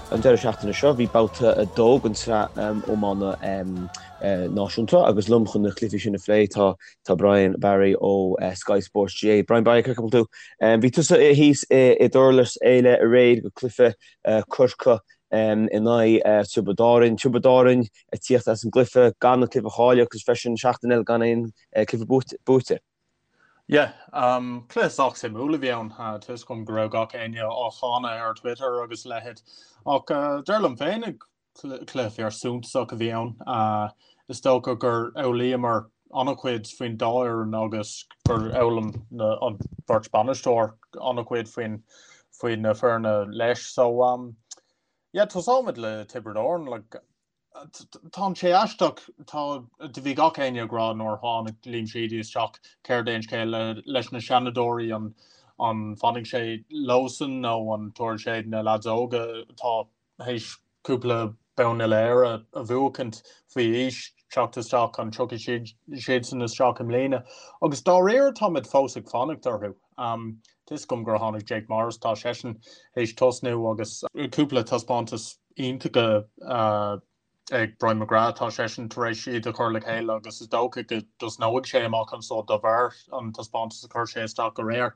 An deireadh seachtaine seo bhí babhta 2 den tsraith iomána náisiúnta agus liom chun na cluichí sin a phlé tá tá Brian Barry ó Sky Sports GAA. Brian Barry, cén chaoi a bhfuil tú? Bhí tusa thíos i nDurlas Éile aréir go cluiche Corcaigh in aghaidh Tiobraid Árann. Tiobraid Árann ag tíocht as an gcluiche gan an cluiche a chailleadh agus freisin seachtain eile gan aon cluiche buaite. Yeah, cluiche sách suimiúil a bhí ann. Tá fhios agam go raibh gach éinne á cháineadh ar Twitter agus a leithéid. Ach dar liom féin, cluiche fíor suntasach a bhí ann. Is dócha gur fhoghlaíomar an-chuid faoin dá fhoireann agus gur fhoghlaim an bheirt bainisteoir an-chuid faoin faoi na foirne leis. So, yeah, tosóimid le Tiobraid Árann. Like, Tá sé aisteach, tá, do bhí gach éinne ag rá nuair a tháinig Liam Sheedy isteach céard é an scéal leis na seanadóirí, an an bhfanfaidh sé leosan nó an dtabharfaidh sé na leaids óga atá théis cúpla bonn uile-Éire a bhuachaint faoi aois teacht isteach, an dtiocfaidh siad siadsan isteach i mbliana? Agus dáiríre táimid fós ag fanacht orthu. Tá fhios agam gur tháinig Jake Morris, tá seisean théis tosnú agus cúpla taispeántas iontacha ag Brian McGrath, tá seisean tar éis iad a chur le chéile agus is dócha go dtosnóidh sé amach anso de bharr an taispeántas a chuir sé isteach aréir.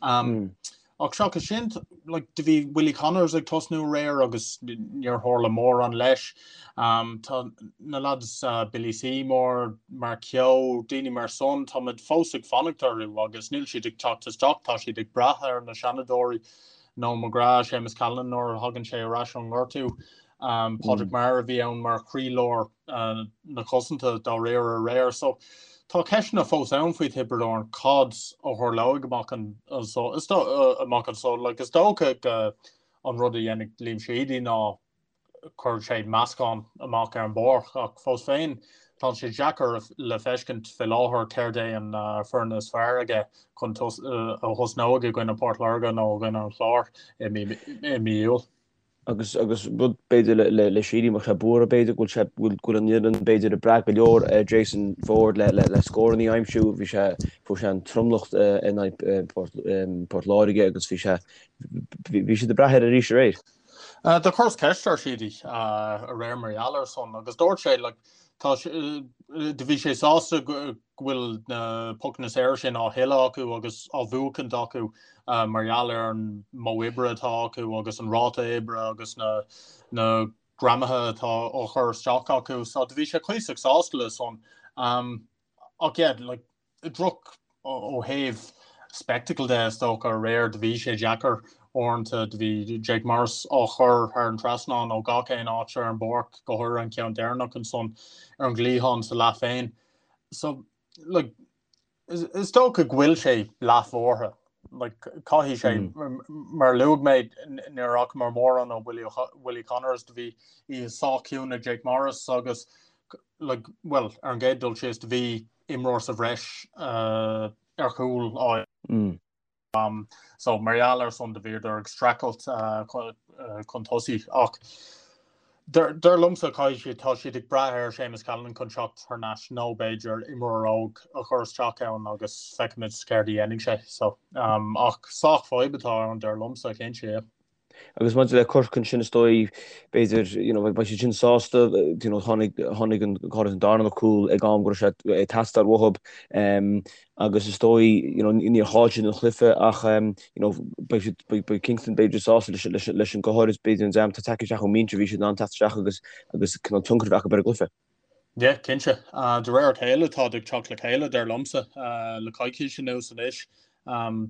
Ach seachas sin, like, do bhí Willie Connors ag tosnú aréir agus níor tharla mórán leis. Tá na lads Billy Seymour, Mark Kehoe, daoine mar san, táimid fós ag fanacht orthu agus níl siad ag teacht isteach, tá siad ag brath ar na seanadóirí. Noel McGrath, Séamus Callanan nuair a thagann sé ar ais ón ngortú, Padraig Maher a bhí ann mar chroílár na cosanta dáiríre aréir. So tá ceisteanna fós ann faoi Thiobraid Árann, cad a tharlóidh amach anso, amach anso. Like, is dócha go an rud a dhéanfaidh Liam Sheedy ná cuirfidh sé meascán amach ar an bpáirc ach fós féin tá sé deacair le feiscint fé láthair céard é an foireann is fearr aige chun a thosnóidh i gcoinne Port Láirge nó i gcoinne an Chláir i mí Iúil. Agus agus rud b'fhéidir le le le Sheedy má tá sé buartha b'fhéidir go bhfuil sé go bhfuil an fhoireann b'fhéidir ag brath go leor ar Jason Forde le le le scóranna a aimsiú bhí sé fuair sé an tromlach in aghaidh Port Port Láirge agus bhí sé bhí siad ag brath air arís aréir. Do chuireas ceist ar Sheedy aréir mar gheall ar san agus dúirt sé like, tá do bhí sé sásta go bhfuil na pocanna saora sin á thuilleadh acu agus á bhuachaint acu mar gheall ar an modh oibre atá acu agus an ráta oibre agus na na greamaithe atá á chur isteach acu. So do bhí sé cuíosach sásta le san. Ach yeah, like, droch ó thaobh spectacle de is dócha aréir do bhí sé deacair uaireanta do bhí Jake Morris á chur thar an trasnán ó gach aon áit ar an bpáirc go háirithe an ceann deireanach ansan ar an gcliathán sa leath féin so like is, is dócha go bhfuil sé leathbhuartha like caithfidh sé mm. mar luaigh mé níor fhacamar mórán ó Willie, Willie Connors do bhí oíche sách ciúin ag Jake Morris agus like, well, ar an gcéad dul síos do bhí imreoir sa bhreis ar chúl á so mar gheall ar san do bhíodar ag streachailt chun tosaigh ach dar liomsa caithfidh siad tá siad ag brath ar Séamus Callanan chun teacht thar n-ais nó b'fhéidir imreoir óg a chur isteach ann agus feicfimid céard a dhéanfaidh sé so ach sách fadhb atá ann dar liomsa cinnte yeah. Agus maidir le Corcaigh ansin is dóigh, b'fhéidir, you know, beidh siad sin sásta, you know, tháinig, tháinig an, go háirithe an darna cúl ag am go raibh sé ag teastáil uathu agus is dóigh, you know, níor chaill siad an chluiche ach, you know, beidh siad, beidh, beidh Kingston b'fhéidir sásta leis, leis, leis an, go háirithe b'fhéidir an dream atá tagtha isteach ón mbinse, bhí siad in ann teacht isteach agus, agus cineál tionchar a bheith acu ar an gcluiche. Yeah, cinnte. De réir a chéile táid ag teacht le chéile, dar liomsa, le coicís anuas anois.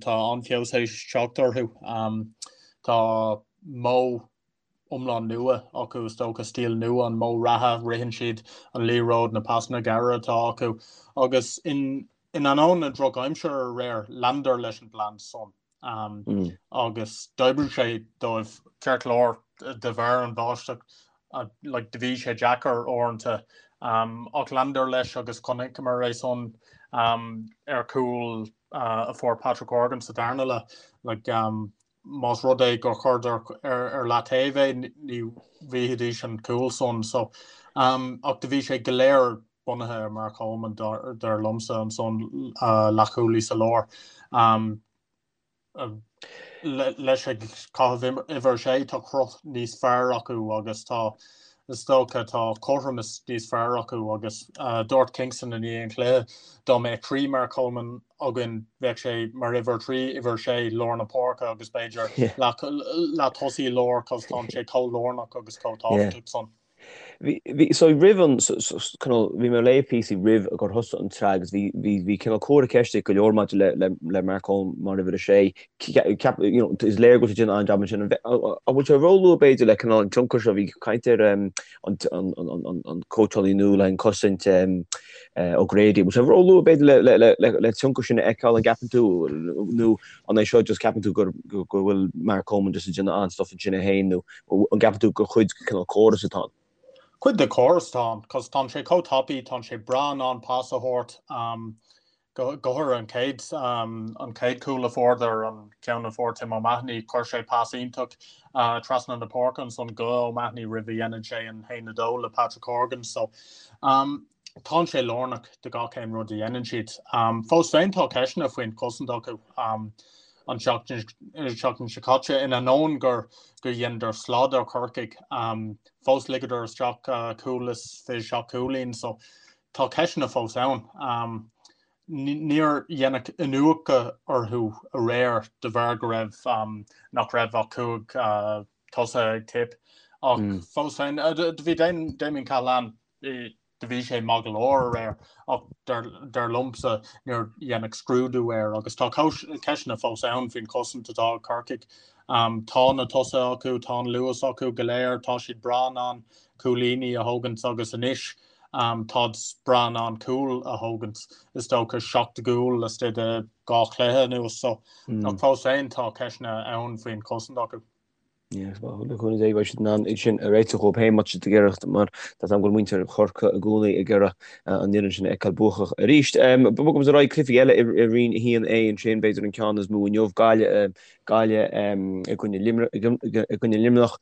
Tá an-fheabhas théis teacht orthu. Tá modh iomlán nua acu, is dócha, stíl nua, an modh reatha, ritheann siad an liathróid, na pasanna gearra atá acu. Agus in ainneoin na drochaimsire aréir, leanadar leis an bplean san. Agus d'oibrigh sé dóibh ceart go leor de bharr an bháisteach like do bhí sé deacair uaireanta ach leanadar leis agus chonaiceamar é san ar chúl a fuair Patrick Horgan sa darna leath like más rud é gur chuireadar ar, ar leataobh é ní bhfaighidís an cúl san so ach do bhí sé go léir bunaithe ar Mark Coleman dar liomsa ansan leathchúlaí sa lár. Leis ag caitheamh uimhir 6 tá cruth níos fearr acu agus tá, is dócha, tá cothromas níos fearr acu agus dúirt Kingston i ndiaidh an chluiche dá mbeadh 3 Mark Coleman againn bheadh sé mar uimhir 3, uimhir 6, lár na páirce agus b'fhéidir leath tosaí láir cos tá sé chomh lárnach agus chomh tábhachtach san. Bhí, bhí, so roimh an, so, so, cineál, bhí mé ag léamh píosaí roimh gur thosaigh an tsraith agus bhí, bhí, bhí cineál comhartha ceiste ag go leor maidir le, le, le Mark Coleman mar uimhir a sé. Ceap, you know, is léir go bhfuil sé ag déanamh an-jab ansin. An an bhfuil sé róluath b'fhéidir le cineál an tionchar seo, bhí caint ar um, an, an, an, an, an, an cóitseálaí nua le an cosaint um, uh, O'Grady. Bhfuil sé róluath b'fhéidir le, le, le, le, le tionchar sin a fheiceáil an gceapann tú nó an é seo just ceapann tú gur, go, go bhfuil Mark Coleman just ag déanamh an-stuff ansin é féin nó An gceapann tú gur cuid den cineál córas atá ann? Cuid de chóras atá ann, cos tánn sé chomh tapaidh, tánn sé breá in ann pas a thabhairt, go háirithe an chéad, an chéad chúl a fuaireadar, an ceann a fuair Tim O'Mahony, chuir sé pas iontach trasna na páirce ansan go O'Mahony roimh a dhéanann sé an 1-2 le Patrick Horgan. So, tánn sé lárnach do gach aon rud a dhéanann siad. Fós féin tá ceisteanna faoin chosaint acu an tseachtain seo caite, in ainneoin gur gur dheineadar slad ar Chorcaigh, fós ligeadar isteach cúl is 27 cúilín, so tá ceisteanna fós ann. Níor deineadh iniúchadh orthu aréir de bharr go raibh nach raibh ach 5 tosaithe ag Tipp ach fós féin do bhí Damien Cahalane do bhí sé maith go leor aréir ach dar liomsa níor deineadh scrúdú air agus tá ceisteanna fós ann faoin chosaint atá ag Corcaigh. Tá na tosaithe acu, tá an luas acu go léir, tá siad breá in ann cúilíní a thógaint agus anois táid breá in ann cúl a thógaint, is dócha 7 gcúl laistigh de 2 chluiche anuas so ach fós féin tá ceisteanna ann faoin chosaint acu. Le cúnamh Dé beidh siad in ann iad sin a réiteach dhóibh féin má tá siad ag iarraidh mar tá a fhios agam go bhfuil muintir Chorcaí i gcónaí ag iarraidh an fhoireann sin a fheiceáil buacach arís. Bogaimis ar aghaidh cluichí eile i Roinn 1A ansin, b'fhéidir an ceann is mó inniu, Gaillimh Gaillimh i gcoinne i gcoinne Luimneach.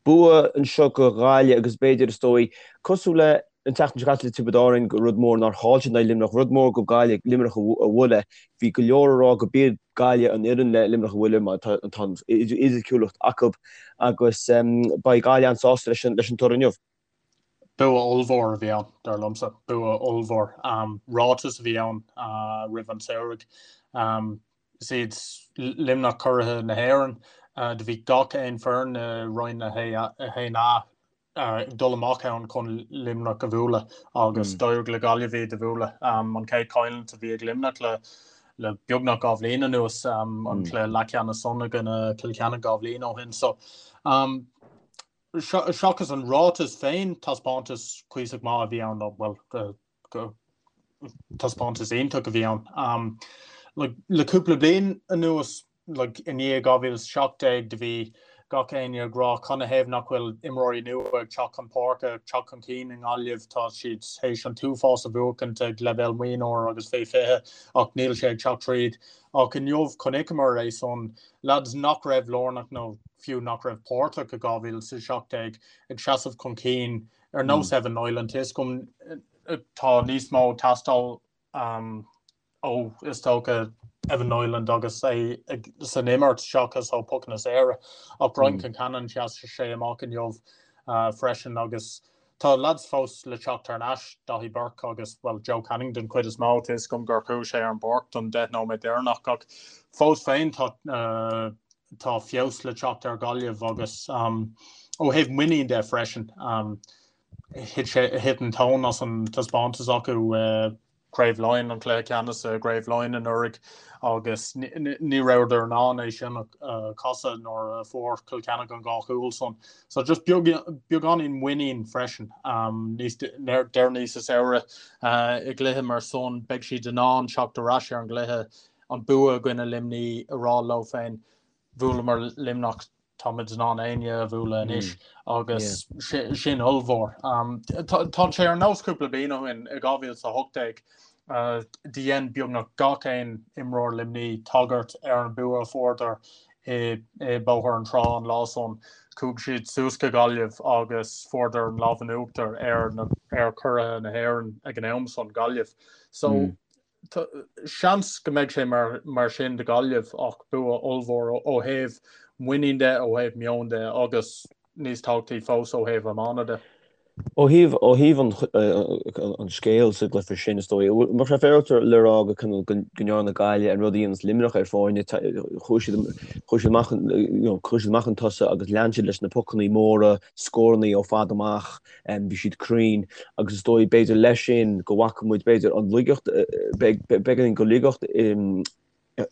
Bua anseo go Ghaillimh agus b'fhéidir is dóigh cosúil le An tseachtain seo caite le Tiobraid Árann, gur rud mór nár chaill siad in aghaidh Luimneach, rud mór go Gaillimh Luimneach a bhualadh. Bhí go leor ag rá go b'iad Gaillimh an fhoireann le Luimneach a bhualadh mar tá an fhisiciúlacht acu agus beidh Gaillimh an-sásta leis an toradh inniu. Bua ollmhór a bhí ann, dar liomsa. Bua ollmhór. Ráiteas a bhí ann roimh an samhradh. Is iad Luimneach curaithe na hÉireann. Do bhí gach aon foireann i Roinn 1A ag dul amach ann chun Luimneach a bhualadh agus d'éirigh le Gaillimh iad a bhualadh. An chéad choimhlint a bhí ag Luimneach le le beagnach 2 bhliain anuas, an cluiche leathcheannais san i gcoinne Cill Chainnigh 2 bhliain ó shin. So seachas an ráiteas féin, taispeántas cuíosach maith a bhí ann, bhuel, taispeántas iontach a bhí ann. Le cúpla bliain anuas, like, i ndiaidh 2017 do bhí gach éinne ag rá canathaobh nach bhfuil imreoirí nua ag teacht chun páirce, ag teacht chun cinn i nGaillimh, tá siad théis an t-uafás a bhuachaint ag leibhéal mionúr agus fé 20 ach níl sé ag teacht tríd. Ach inniu chonaiceamar é san, lads nach raibh lárnach nó fiú nach raibh páirteach i 2017 ag seasamh chun cinn ar nós Evan Niland, tá a fhios agam tá níos mó ag teastáil ó, is dócha, Evan Niland agus é san imirt seachas ó pocanna saora. Ach Brian Concannon, sheas sé amach inniu freisin agus tá lads fós le teacht thar n-ais, Daithí Burke agus, bhuel, Joe Canning den chuid is mó, tá a fhios agam gur chuaigh sé ar an bpáirc don 10 nóiméad deireanach ach fós féin tá tá feabhas le teacht ar Ghaillimh agus ó thaobh muinín de freisin, thit sé, thit an tóin as an taispeántas acu i gCraobh Laighean, an cluiche ceannais i gCraobh Laighean anuraidh agus ní rabhadar in ann é sin a chasadh nuair a fuair Cill Chainnigh an dhá chúl san. So just beagáinín muinín freisin níos deireanaí sa samhradh i gcluiche mar san beidh siad in ann teacht ar ais ar an gcluiche, an bua i gcoinne Luimní a rá leo féin, bhuaileamar Luimneach táimid in ann éinne a bhualadh anois agus sin ollmhór. Tá sé ar nós cúpla bliain ó shin i 2018 do dhein beagnach gach aon imreoir Luimní tagairt ar an bua a fuaireadar i Bóthar an Trá an lá san. Chuaigh siad suas go Gaillimh agus fuaireadar an lámh in uachtar ar ar churaithe na hÉireann ag an am san, Gaillimh. So. Seans go mbeidh sé mar sin do Ghaillimh ach bua ollmhór ó thaobh muinín de, ó thaobh meoin de agus níos tábhachtaí fós ó thaobh iomána de. Ó thaobh ó thaobh an an scéil sa gcluiche sin is dóigh, bheadh sé féaráilte le rá go cineál go ndearna Gaillimh an rud a dhéanas Luimneach ar foirne, chuaigh siad chuaigh siad amach you know chuaigh siad amach chun tosaigh agus lean siad leis na pocannaí móra, scórannaí ó fad amach. Bhí siad cruinn agus is dóigh b'fhéidir leis sin go bhfaca muid b'fhéidir an laigeacht, beagáinín de laigeacht in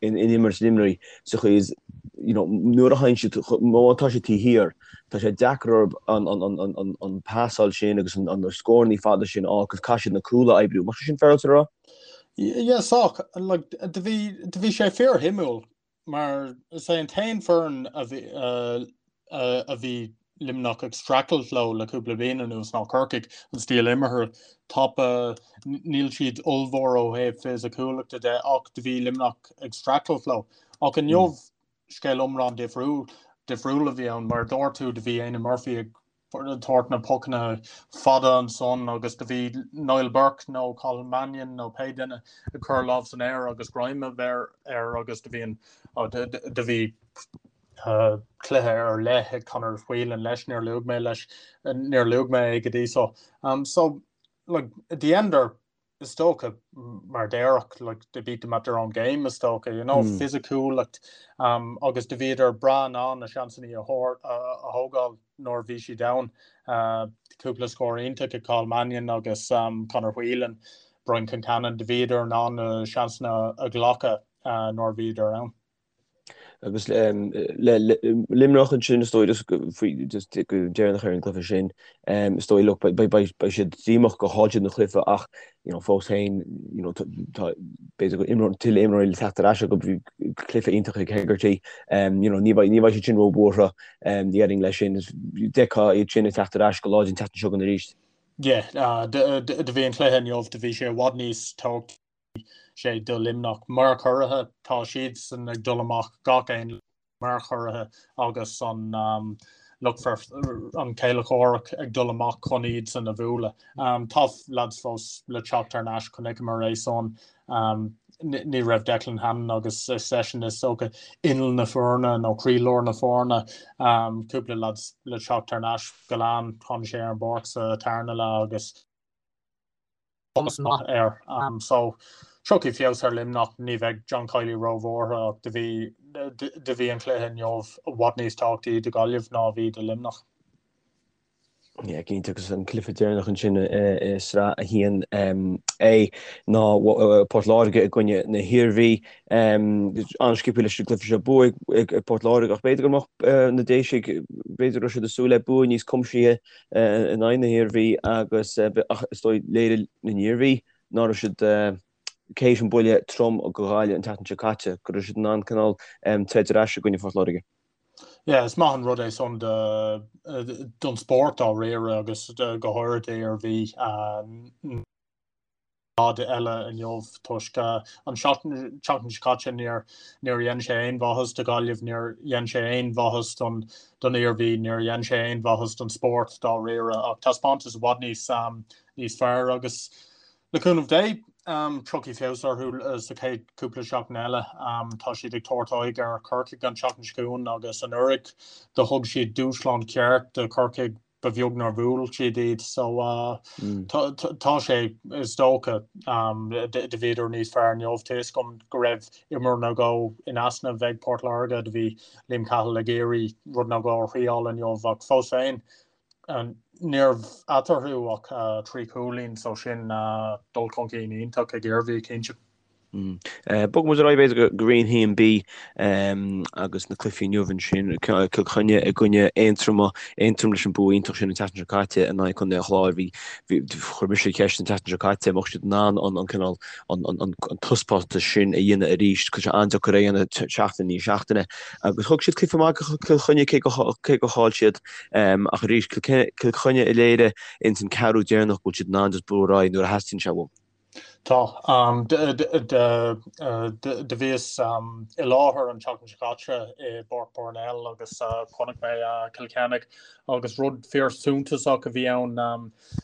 imirt Luimnigh sa chaoi is you know nuair a théann siad, má tá siad taobh thiar, tá sé deacair orthu an pasáil sin agus an scórannaí fada sin a fháil agus caithfidh siad na cúil a oibriú. An bhfuil sé sin féaráilte a rá? Yeah, sách. Like, do bhí, do bhí sé fíorshuimiúil. Mar is é an t-aon foireann a bhí a bhí Luimneach ag streachailt leo le cúpla bliain anuas ná Corcaigh, an stíl imeartha tapa, níl siad ollmhór ó thaobh fisiciúlachta de ach do bhí Luimneach ag streachailt leo. Ach inniu scéal iomlán difriúil difriúil a bhí ann mar a dúirt tú do bhí Éanna Murphy ag tabhairt na pocanna fada ansan agus do bhí Niall Burke nó Cathal Mannion nó pé duine ag cur lámh san aer agus greim a bheith air agus do bhí an do bhí cluiche ar leith ag Conor Whelan leis, níor luaigh mé leis, níor luaigh mé é go dtí so. So like dheineadar is dócha, mar déarfá, like, they beat them at their own game, is dócha, you know, fisiciúlacht, agus do bhíodar breá in ann na seansannaí a thógáil nuair a bhí siad ann. Cúpla scór iontach ag Cathal Mannion agus Conor Whelan, Brian Concannon, do bhíodar in ann na seansanna a ghlacadh nuair a bhíodar ann. Agus le Luimneach ansin is dóigh just faoi just go deireanach ar an gcluiche sin is dóigh look beidh siad díomách gur chaill siad an cluiche ach you know fós féin you know tá b'fhéidir go imreoir tuilleadh imreoirí le teacht ar ais acu bhí cluiche iontach ag Hegarty you know ní bheidh ní bheidh siad sin róbhuartha déarfainn leis sin d'fheicfeá iad sin ag teacht ar ais go láidir an tseachtain seo chugainn arís. Yeah, do bhí an cluiche inniu do bhí sé i bhfad níos tábhachtaí sé do Luimneach mar churaithe. Tá siadsan ag dul amach gach aon lá mar churaithe agus an lucht an céile comhraic ag dul amach chun iadsan a bhualadh. Tá lads fós le teacht thar n-ais, chonaiceamar é san. Ní raibh Declan Hannon agus is eisean is dócha inneall na foirne nó croílár na foirne. Cúpla lads le teacht thar n-ais. Gillane, tháinig sé ar an bpáirc sa tarna leath agus. Cumas maith air. So, tiocfaidh feabhas ar Luimneach, ní bheidh John Kiely róbhuartha ach do bhí do bhí an cluiche inniu i bhfad níos tábhachtaí do Ghaillimh ná a bhí do Luimneach. Yeah, cinnte agus an cluiche deireanach ansin i sraith 1A ná Port Láirge i gcoinne na hIarmhí. An-sciobtha leis an gcluiche seo bua ag Port Láirge ach b'fhéidir go mbeadh na Déisigh, b'fhéidir go raibh siad ag súil le bua níos cuimsithe in aghaidh na hIarmhí agus ach is dóigh léirigh an Iarmhí ná raibh siad théis an buille trom go Ghaillimh an tseachtain seo caite, go raibh siad in ann cineál troid ar ais i gcoinne Phort Láirge. Yeah, is maith an rud é san don spórt dáiríre agus go háirithe d'Iarmhí. Rud eile inniu toisc an tseachtain seo caite níor níor dhein sé aon mhaitheas do Ghaillimh, níor dhein sé aon mhaitheas don don Iarmhí, níor dhein sé aon mhaitheas don spórt dáiríre ach taispeántas i bhfad níos níos fearr agus le cúnamh Dé tiocfaidh feabhas orthu sa chéad cúpla seachtain eile. Tá siad ag tabhairt aghaidh ar Chorcaigh an tseachtain seo chugainn agus anuraidh do thug siad dúshlán ceart do Chorcaigh ba bheag nár bhuail siad iad so tá sé is dócha do bhíodar níos fearr inniu tá a fhios agam go raibh imreoir nó dhó in easnamh ag Port Láirge do bhí Liam Cahill ag iarraidh rud nó dhó a thriáil inniu ach fós féin ní raibh eatarthu ach 3 chúilín so sin dul chun cinn iontach ag Iarmhí cinnte. Bogfaidh muid ar aghaidh b'fhéidir go Roinn 1B agus na cluichí inniu ansin, Cill Chainnigh i gcoinne Aontroma, Aontroim leis an bua iontach sin an tseachtain seo caite in aghaidh Chontae an Chláir. Bhí, bhí, chuir mise ceist an tseachtain seo caite an mbeadh siad in ann an cineál, an, an, an taispeántas sin a dhéanamh arís. Tá sé an-deacair é a dhéanamh seachtain i ndiaidh seachtaine agus thug siad cluiche maith do Chill Chainnigh cé go, cé gur chaill siad. Ach arís, Cill Chainnigh a léirigh ins an ceathrú deireanach go bhfuil siad in ann just brú ar aghaidh nuair a theastaíonn sé uathu. Tá. Do bhíos i láthair an tseachtain seo caite i bPáirc Parnell agus chonaic mé Cill Chainnigh agus rud fíor suntasach a bhí ann,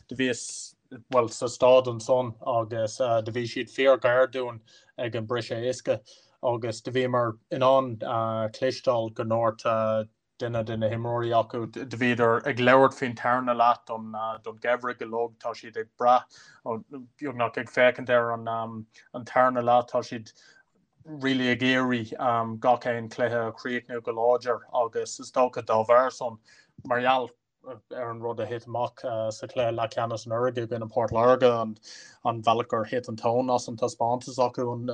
do bhíos. Bhuel, sa staid ansan agus do bhí siad fíor ghar dúinn ag an briseadh uisce agus do bhíomar in ann cloisteáil go ndúirt duine de na himreoirí acu, do bhíodar ag labhairt faoin tarna leath don gheimhreadh uilig, tá siad ag brath, beagnach ag féachaint ar an tarna leath, tá siad really ag iarraidh gach aon chluiche a chríochnú go láidir agus is dócha dá bharr san, mar gheall ar an rud a thit amach sa chluiche leathcheannais anuraidh i gcoinne Port Láirge, an bealach gur thit an tóin as an taispeántas acu an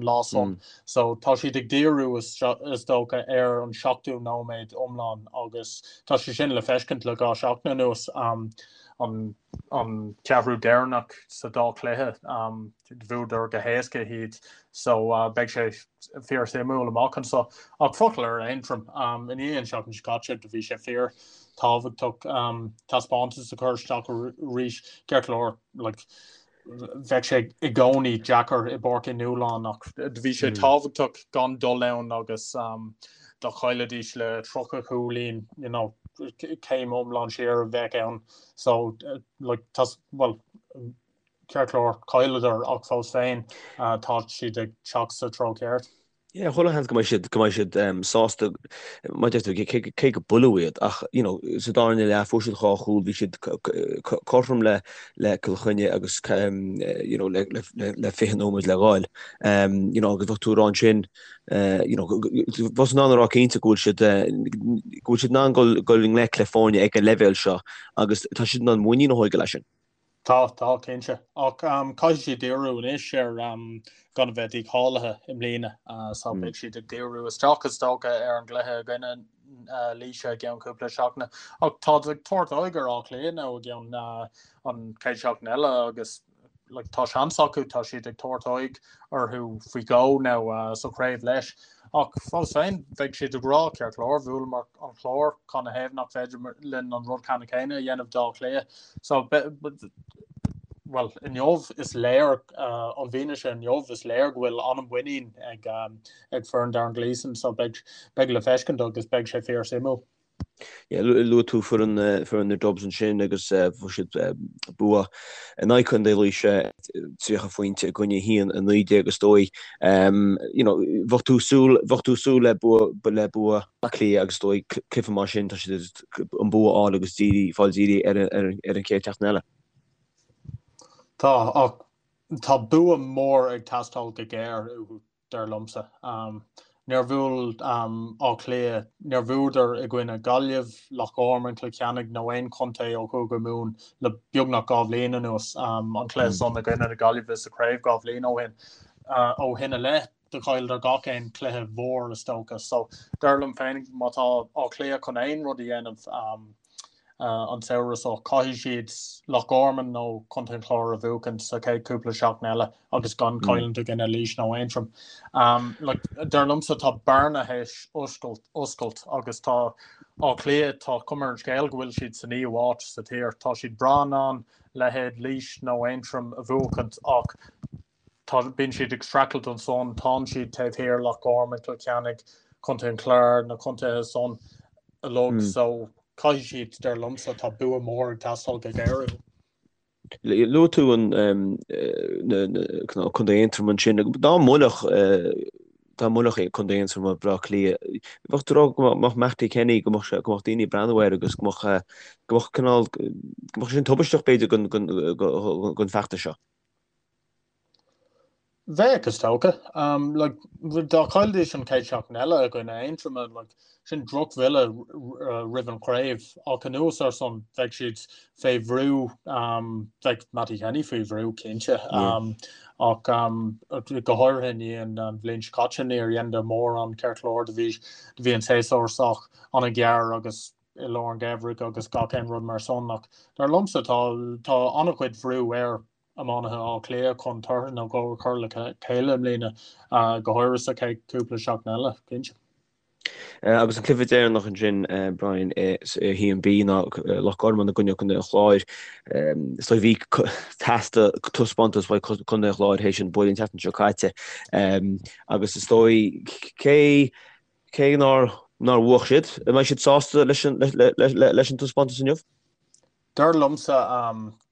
lá san. So tá siad ag díriú is dócha ar an seachtú nóiméad iomlán agus tá sé sin le feiscint le 2 seachtain anuas, an ceathrú deireanach sa dá chluiche. Bhuadar go héasca iad so beidh sé fíor suimiúil amach anseo. Ach focal ar Aontroim, i ndiaidh an seachtain seo caite do bhí sé fíor tábhachtach taispeántas a chur isteach arís. Ceart go leor like bheadh sé i gcónaí deacair i bPáirc Uí Nualláin ach do bhí sé tábhachtach gan dul ann agus dá chaillfidís le 30 cúilín you know céim iomlán siar a bheadh ann. So like tá well Ceart go leor, chailleadar ach fós féin tá siad ag teacht sa treo ceart. Yeah, chuile sheans go mbeidh siad, go mbeidh siad sásta, mar a deir tú, cé go buaileadh iad ach, you know, sa darna leath fuair siad dhá chúl, bhí siad cothrom le le Cill Chainnigh agus you know, le le le 20 nóiméad le ghabháil. You know, agus bheadh tú ag rá ansin, you know, bheifeá in ann a rá cinnte go bhfuil siad, go bhfuil siad in ann dul dul i ngleic le foirne ag an leibhéal seo agus tá siad in ann muinín a thógáil as sin. Tá, tá, cinnte. Ach caithfidh siad díriú anois ar gan a bheith dícháilithe i mbliana. So beidh siad ag díriú isteach is dócha ar an gcluiche i gcoinne Laoise i gceann cúpla seachtaine. Ach táid ag tabhairt aghaidh ar Áth Cliath now i gceann an chéad seachtain eile agus like, tá seans acu, tá siad ag tabhairt aghaidh orthu faoi dhó now sa chraobh leis. Ach fós féin, bheadh siad ag rá, ceart go leor, bhuaileamar an Clár, cad 'na thaobh nach féidir linn an rud ceannann céanna a dhéanamh d'Áth Cliath. So, bhuel, inniu is léir, an bhfianaise inniu, is léir go bhfuil an-mhuinín ag foireann Darren Gleeson, so beidh le feiscint agus beidh sé fíor-suimiúil. Luaigh tú foireann na Dubs ansin agus fuair siad bua in aghaidh Chontae Laoise, 30 phointe i gcoinne 1, 19 is dóigh. You know, bheadh tú súil, bheadh tú súil le bua, le bua Átha Cliath agus is dóigh cluiche mar sin, tá siad an bua a fháil agus dírí, fáil dírí ar ar an chéad tseachtain eile. Tá, ach tá bua mór ag teastáil go géar uathu. dar liomsa. Níor bhuail Áth Cliath, níor bhuadar i gcoinne Gaillimh, Loch Garman, Cill Chainnigh nó aon chontae ó Chúige Mumhan le beagnach 2 bhliain anuas, an cluiche san i gcoinne na Gaillimhe sa chraobh 2 bhliain ó shin. Ó shin i leith, do chailleadar gach aon chluiche mhór is dócha. So, dar liom féin, má tá Áth Cliath chun aon rud a dhéanamh, an samhradh seo. Caithfidh siad Loch Garman nó Contae an Chláir a bhuachan sa chéad cúpla seachtain eile agus gan cailliúint i gcoinne Laois nó Aontroim. Dar liomsa tá bearna théis oscailt agus tá Áth Cliath, tá cuma ar an scéal go bhfuil siad sa naoú háit sa tír. Tá siad breá in ann leithéid Laois nó Aontroim a bhuachaint ach Tá, bíonn siad ag streachailt ansan, tánn siad taobh thiar, Loch Garman, Cill Chainnigh, Contae an Chláir, na contaetha san uilig, so caithfidh siad, dar liomsa, tá bua mór ag teastáil go géar uathu. Luaigh tú an Contae Aontroim ansin, dá mbuailfeadh dá mbuailfeadh Contae Aontroma Baile Átha Cliath, bheadh tú ag rá go mbeadh Mattie Kenny, go mbeadh go mbeadh daoine ag breathnú air agus go mbeadh go mbeadh cineál go mbeadh sin tubaisteach b'fhéidir don don feachtas seo. Bheadh, is dócha. Like, dá chaillfidís an chéad seachtain eile i gcoinne Aontroma, like, sin drochbhuille roimh an chraobh. Ach anuas ar san, bheadh siad fé bhrú, bheadh Mattie Kenny faoi bhrú, cinnte. Ach go háirithe i ndiaidh an bhliain seo caite, níor dheineadar mórán ceart go leor, do bhí, do bhí an séasúr sách an-ghearr agus i lár an gheimhridh agus gach aon rud mar san ach dar liomsa tá tá an-chuid bhrú ar iománaithe Átha Cliath chun tortha nó dhó a chur le chéile i mbliana, go háirithe sa chéad chúpla seachtain eile, cinnte. Agus an cluiche deireanach ansin, Brian, i 1B ná Loch Garman i gcoinne Contae an Chláir. Is dóigh bhí teastaigh taispeántas uaidh Contae an Chláir théis an bualadh an tseachtain seo caite. Agus is dóigh cé Cé nár nár bhuaigh siad, an mbeidh siad sásta leis an leis an taispeántas inniu? Dar liomsa,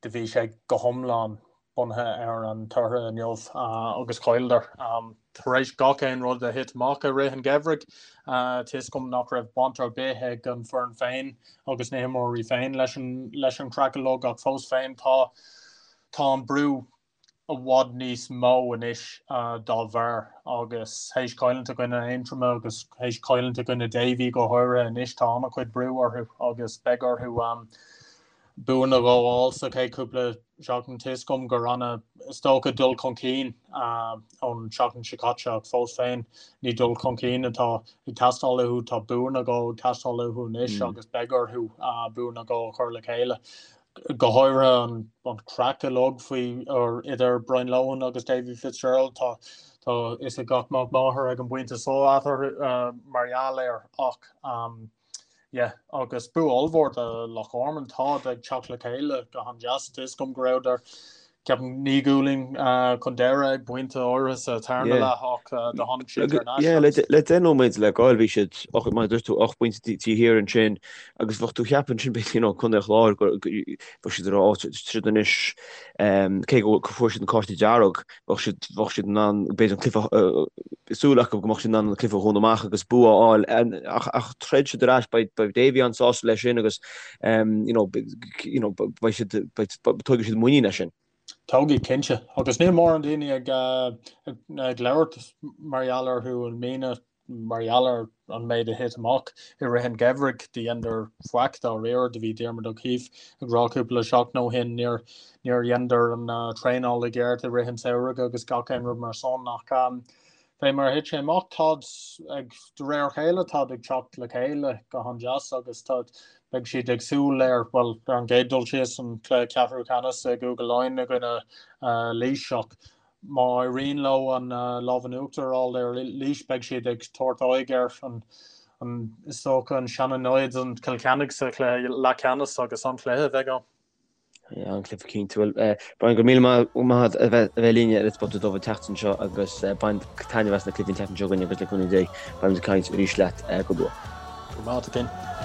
do bhí sé go hiomlán bunaithe ar an tortha inniu agus chailleadar. Tar éis gach aon rud a thit amach i rith an gheimhridh, tá 'fhios agam nach raibh baint ar bith ag an foireann féin agus na himreoirí féin leis an leis an chraic uilig ach fós féin tá tá an brú i bhfad níos mó anois dá bharr agus théis cailliúint i gcoinne Aontroma agus théis cailliúint i gcoinne Davy go háirithe anois tá an-chuid brú orthu agus beidh orthu buanna a fháil sa chéad chúpla seachtain. Tá 'fhios agam gur ana is dócha dul chun cinn ón seachtain seo caite ach fós féin ní dul chun cinn atá ag teastáil uathu, tá buanna ag teastáil uathu anois agus beidh orthu buanna a chur le chéile. go háirithe an craic uilig faoi or idir Brian Lohan agus Davy Fitzgerald tá tá fhios ag gach mac máthar ag an bpointe so eatarthu mar gheall air ach um, yeah, agus bua ollmhór do Loch Garman táid ag teacht le chéile go han-deas tá 'fhios agam go rabhadar ceapaim naoi gcúilín chun deireadh ag pointe áirithe sa tarna leath ach do tháinig siad thar n-ais. Le 10 nóiméad le gabháil bhí siad, mar a dúirt tú, 8 bpointe taobh thiar ansin agus bheadh tú ag ceapadh ansin b'fhéidir you know Contae an Chláir go bheadh siad ar áit siad anois cé go fuair siad an cárta dearg bheadh siad bheadh siad in ann b'fhéidir an cluiche súil acu go mbeadh siad in ann an cluiche a dhúnadh amach agus bua a fháil ach ach throid siad ar ais beidh beidh Davy an-sásta leis sin agus you know you know beidh siad beidh tógfaidh siad muinín as sin. Tógfaidh, cinnte. Agus níl mórán daoine ag ag labhairt mar gheall orthu i mbliana mar gheall ar an méid a thit amach i rith an gheimhridh. Do dheineadar faic dáiríre. Do bhí Diarmuid O'Keeffe ag rá cúpla seachtain ó shin níor níor dheineadar an traenáil i gceart i rith an tsamhraidh agus gach aon rud mar san ach fé mar a thit sé amach táid ag de réir a chéile táid ag teacht le chéile go han-deas agus táid beidh siad ag súil ar bhuel ar an gcéad dul síos an cluiche ceathrú ceannais i gCúige Laighean i gcoinne Laois ach Má éiríonn leo an lámh in uachtar a fháil ar Laois, beidh siad ag tabhairt aghaidh ar an, is dócha, an seana-namhaid, an Cill Chainnigh sa chluiche leathcheannais agus an-chluiche a bheidh ann. An-chluiche cinnte. Bhuel, Brian, go raibh míle maith agat a bheith linn ar Spota Dubh an tseachtain seo agus bain taitneamh as na cluichí an tseachtain seo chugainn agus le cúnamh Dé beimid ag caint arís leat go luath. Go raibh maith agat, a Fhinn.